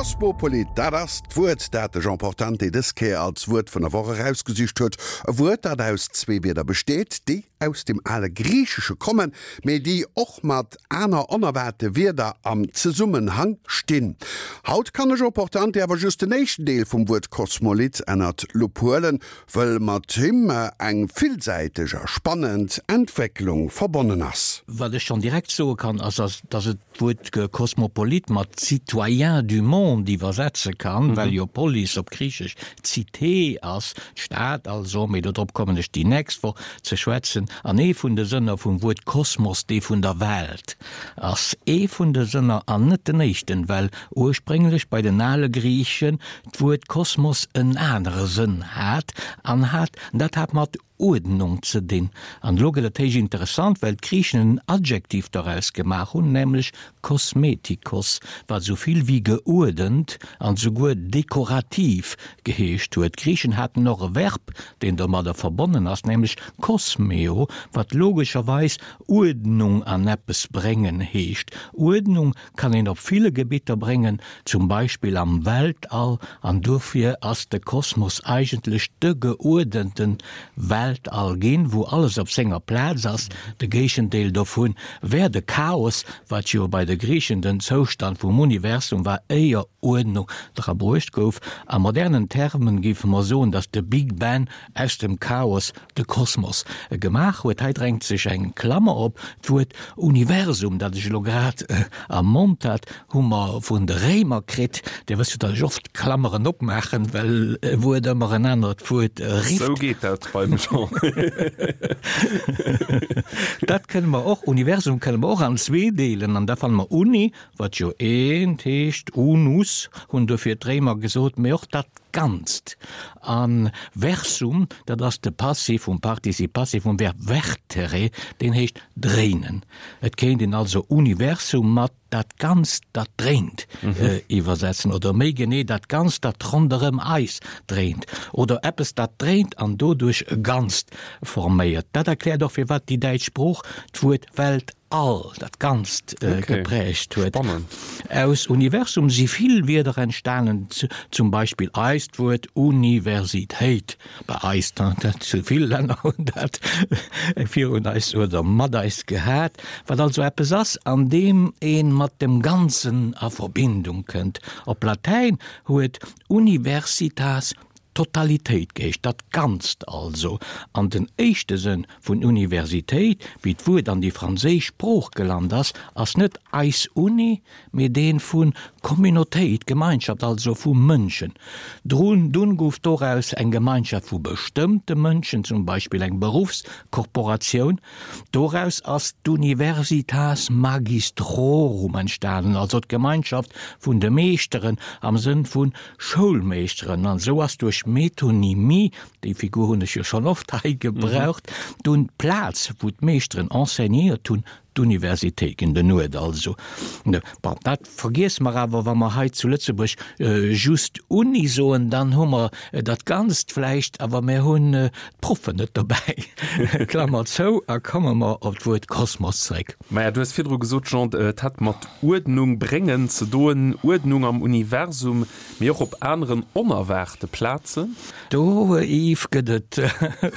Kosmopolit, dat ass d'Wuert, dat de Jean Portante dës Kéier als Wuert vun der Woch erausgesicht huet. E Wuert, dat aus zwee Wierder besteet, déi aus dem ale Griichesche kommen, mee déi och mat aner onerwaarte Wierder am Zesummenhang stinn. Haut kann de Jean Portante awer just den éischten Deel vum Wuert Kosmolit ënnert d'Lupp huelen, wëll mat him eng villsäiteg a spannend Entwécklung verbonnen ass. Wat ech schonn direkt soe kann, ass, dass et d'Wuert Cosmopolite mat Citoyen du monde iwwersetze kann, well jo Polis op Griichesch Cité ass, d'Stad also, mee dodrop kommen ech déi nächst Woch ze schwätzen. An ee vun de Sënner vum Wuert Kosmos dee vun der Welt ass. Ee vun de Sënner an net den éischten, well ursprénglech bei den ale Griichen d'Wuert Kosmos en anere Sënn hat an hat, dat hat mat Uerdnung ze dinn. An elo gëtt et héich interessant, well d'Griichen en Adjektiv doraus gemaach hunn, nämlech kosmetikos, wat esou vill wéi geuerdent an souguer dekorativ geheescht huet. D'Griichen haten och e Verb, deen domadder verbonnen ass, nämlech kosmeo, wat logescherweis Uerdnung an eppes bréngen heescht. Uerdnung kann een op ville Gebitter bréngen, zum Beispill am Weltall, an dofir ass de Kosmos eigentlech de geuerdente Weltall ginn, wou alles op senger Plaz ass. De Géigendeel dovun wär de Chaos, wat jo bei de Griichen den Zoustand vum Universum war, éier Uerdnung dra bruecht gouf. A modernen Termen géife mer soen, datt de Big Bang aus dem Chaos de Kosmos gemaach huet. Hei drängt sech eng Klammer op, D'Wuert Universum, dat ech elo grad am Mond hat, hu mer vun de Réimer kritt. Dir wësst jo, datt ech oft Klammeren opmaachen, well e Wuert ëmmer en anert Wuert rifft. Sou geet dat beim Jean. Dat kënne mer och, Universum kënne mer och an zwee deelen, an da fanne mer Uni, wat jo eent heescht, unus hunn dofir d'Réimer gesot, mee och dat Ganzt. A versum, dat ass de Passiv vum Participe passé vum Verb vertere, deen heescht dréinen. Et kéint een also Universum mat dat Ganzt, dat dréint iwwersetzen, oder méi genee dat Ganzt, dat ronderëm eis dréint, oder eppes, dat dréint an doduerch e Ganzt forméiert. Dat erkläert och, firwat déi däitsch Sprooch d'Wuert Welt All, dat Ganzt geprägt huet. Aus Universum si vill Wierder entstanen, zum Beispill eist Wuert Universitéit, bei eis, dat zu vill Länner hunn dat virun eis oder mat eis gehat, wat also eppes ass, an deem ee mat dem Ganzen a Verbindung kënnt. Op Latäin huet Universitas Totalitéit geheescht, dat Ganzt also. An den éischte Sënn vun Universitéit, wéi d'Wuert an déi franséisch Sprooch gelant ass, ass net eis Uni, mee deen vu Communautéit, Gemeinschaft, also vu Mënschen. Drun, dunn gouf doraus eng Gemeinschaft vu bestëmmte Mënschen, zum Beispill eng Beruffskorporatioun. Doraus ass d'Universitas Magistrorum entstanen, also d'Gemeinschaft vun de Meeschteren am Sënn vun Schoulmeeschteren, an esou ass duerch Metonymie, déi Figur hunn ech jo schonn oft hei gebraucht, dunn d'Plaz, wou d'Meeschteren enseignéiert hunn, d'Universitéit ginn, den Uert also. Bon, dat vergiesse mer awer, wa mer hei zu Lëtzebuerg just Uni soen, dann hu mer dat Ganzt vläicht, awer mir hunn d'Proffen net dobäi. Klammer zou a komme mer op d'Wuert Kosmos zréck. Maja, du hues virdru gesot, Jean, et hätt mat Uerdnung bréngen ze doen, Uerdnung am Universum, mee och op aneren onerwaarte Plazen. Do, Yves, gëtt et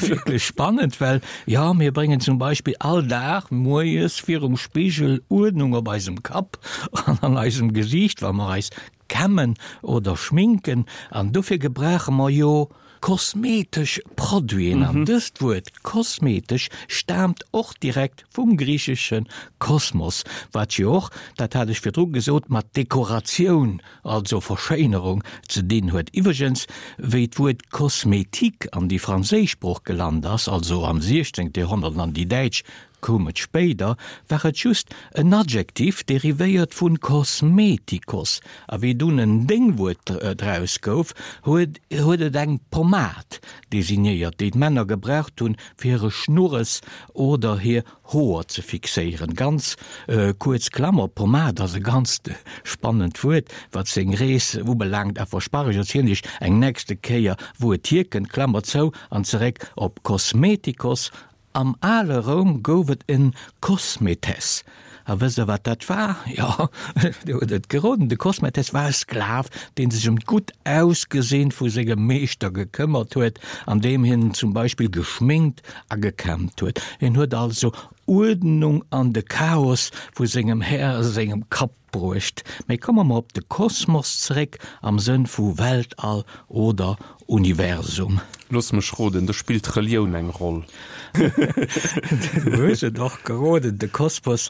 wierklech spannend, well jo, mir bréngen zum Beispill all Dag moies virum Spigel Uerdnung op eisem Kapp an an eisem Gesiicht, wa mer eis kämmen oder schminken an dofir gebrauche mer jo kosmetesch Produiten an dëst Wuert kosmetesch staamt och direkt vum griichesche kosmos, wat jo och, dat hat ech virdru gesot, mat Dekoratioun, also Verschéinerung ze dinn huet. Iwwregens, wéi d'Wuert Kosmetik an déi franséisch Sprooch gelant ass, also am 16. Joerhonnert an an déi däitsch Koum et spéider, war et just en Adjektiv, derivéiert vun kosmetikos, a wéi dunn en Déngwuert draus gouf, huet huet et eng Pommad designéiert, déi d'Männer gebraucht hunn, fir hire Schnurres oder hir Hoer ze fixéieren. Ganz kuerz Klammer, Pommad ass e ganzt spannend Wuert, wat seng Rees ubelaangt, a versprach, ech erzielen iech eng nächste Kéier, wou et hierkënnt. Klammer zou an zeréck op kosmetikos Am ale Roum gouf et en Kosmetes. A wësst Der, wat dat war? Jo, Dir hutt et geroden, de Kosmetes war e Sklav, dee sech ëm d'gutt Ausgesinn vu sengem Meeschter gekëmmert huet, andeem hien en zum Beispill geschminkt a gekämmt huet. Hien huet also Uerdnung an de Chaos vu sengem Här sengem Kapp bruecht. Mee komme mer op de Kosmos zeréck, am Sënn vu Weltall oder Universum. Looss mech roden, do spillt d'Relioun eng Roll. Du hues et och geroden, de Kosmos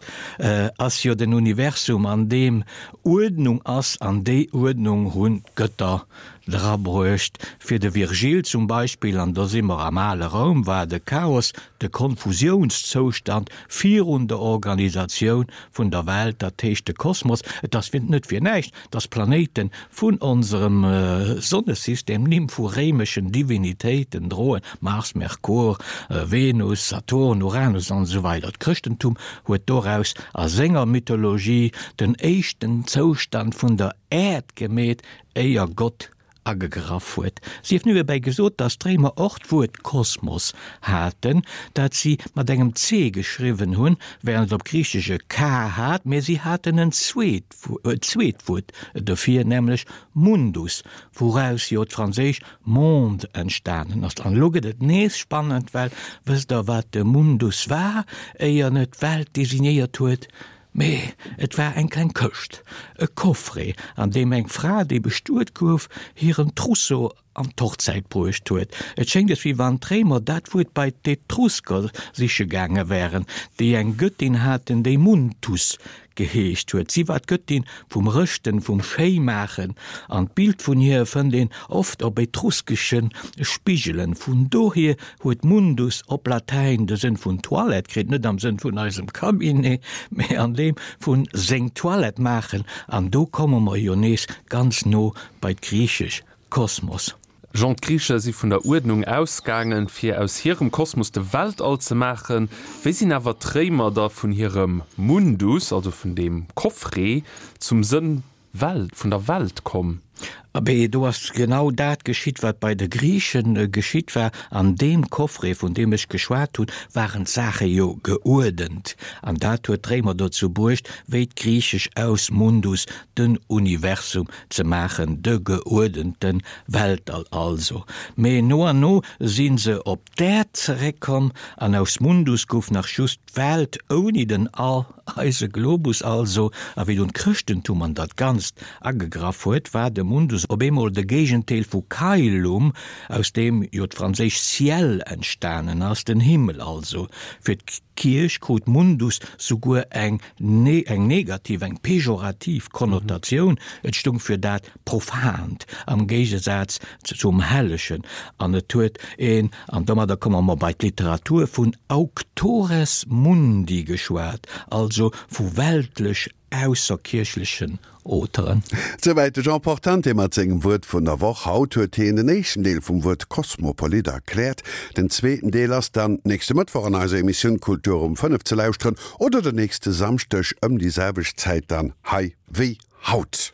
ass jo den Universum, an deem Uerdnung ass, an déi Uerdnung hunn d'Gëtter drabruecht. Fir de Virgil zum Beispill, an do si mer am ale Roum, war de Chaos de Konfusiounszoustand virun der Organisatioun vun der Welt, dat heescht de Kosmos. Et ass net fir näischt, dass d'Planéite vun onserem Sonnesystem Nimm vu réimeschen Divinitéiten droen, Mars, Merkur, Venus, Saturn, Uranus an esou weider. D'Chrëschtentum huet doraus a senger Mythologie den éischten Zoustand vun der Äerd gemeet, éier Gott agegraff huet. Sief niewebäi gesot, datt d'Réimer och d'Wuert Kosmos haten, dat si mat engem C geschriwwen hunn, wärend et op Griichesch e K hat, mee si haten en zweet zweet Wuert dofir, nämlech Mundus, wouraus jo d'franséisch monde entstanen ass. An elo gëtt et nees spannend, well wësst Der, wat de Mundus war, éier en et d'Welt designéiert huet? Mee et war eng kleng Këscht, e Coffret, an deem eng Fra, déi bestuet gouf, hiren Trousseau an d'Hochzäit bruecht huet. Et schéngt es, wéi wann d'Réimer dat Wuert bei d'Etrusker siche gaange wären, déi eng Gëttin haten, déi Muntus geheescht huet. Si war d'Gëttin vum Rëschten, vum Schéimaachen, an d'Bild vun hir fënnt een oft op etruskesche Spigelen. Vun dohier huet Mundus op Latäin de Sënn vun Toilette kritt, net am Sënn vun eisem Cabinet, mee an deem vun seng Toilette maachen, an do komme mer jo nees ganz no bei d'Griichesch Kosmos. Jean, D'Griiche si vun der Uerdnung ausgaangen, fir aus hirem Kosmos de Weltall ze maachen. Wéi sinn awer d'Réimer da vun hirem Mundus, also vun deem Coffret, zum Sënn Welt, vun der Welt komm? Abee, do ass genau dat geschitt, wat bei de Griiche geschitt war. An deem Coffret, vun deem ech geschwat hunn, waren d'Saache jo geuerdent. An dat huet d'Réimer dozou bruecht, wéi d'Griichesch aus Mundus den Universum ze maachen, de geuerdente Weltall also. Mee no an no si se op d'Äerd zeréckkomm an aus Mundus gouf nach just d'Welt ouni den All, eise Globus also. A wéi dunn d'Chrëschtentum an dat Ganzt agegraff huet, war de Mundus op eemol de Géigendeel vu Caelum, aus deem jo d'franséisch ciel entstanen ass, den Himmel also. Fir d'Kierch krut Mundus souguer eng eng negativ, eng pejorativ Konnotatioun, et stung fir dat Profant, am Géigesaz zum Hellegen, an et huet een, an domadder komme mer bei d'Literatur, vun auctores mundi geschwat, also vu weltlech ausserkierchlechen Auteuren. Souwäit de Jean Portante mat sengem Wuert vun der Woch. Haut huet hien den éischten Deel vum Wuert Kosmopolit erkläert. Den zweeten Deel ass dann nächste Mëttwoch an eiser Emissioun Kultur um 5 ze lauschteren oder den nächste Samschdeg ëm déi selwecht Zäit dann hei wéi haut.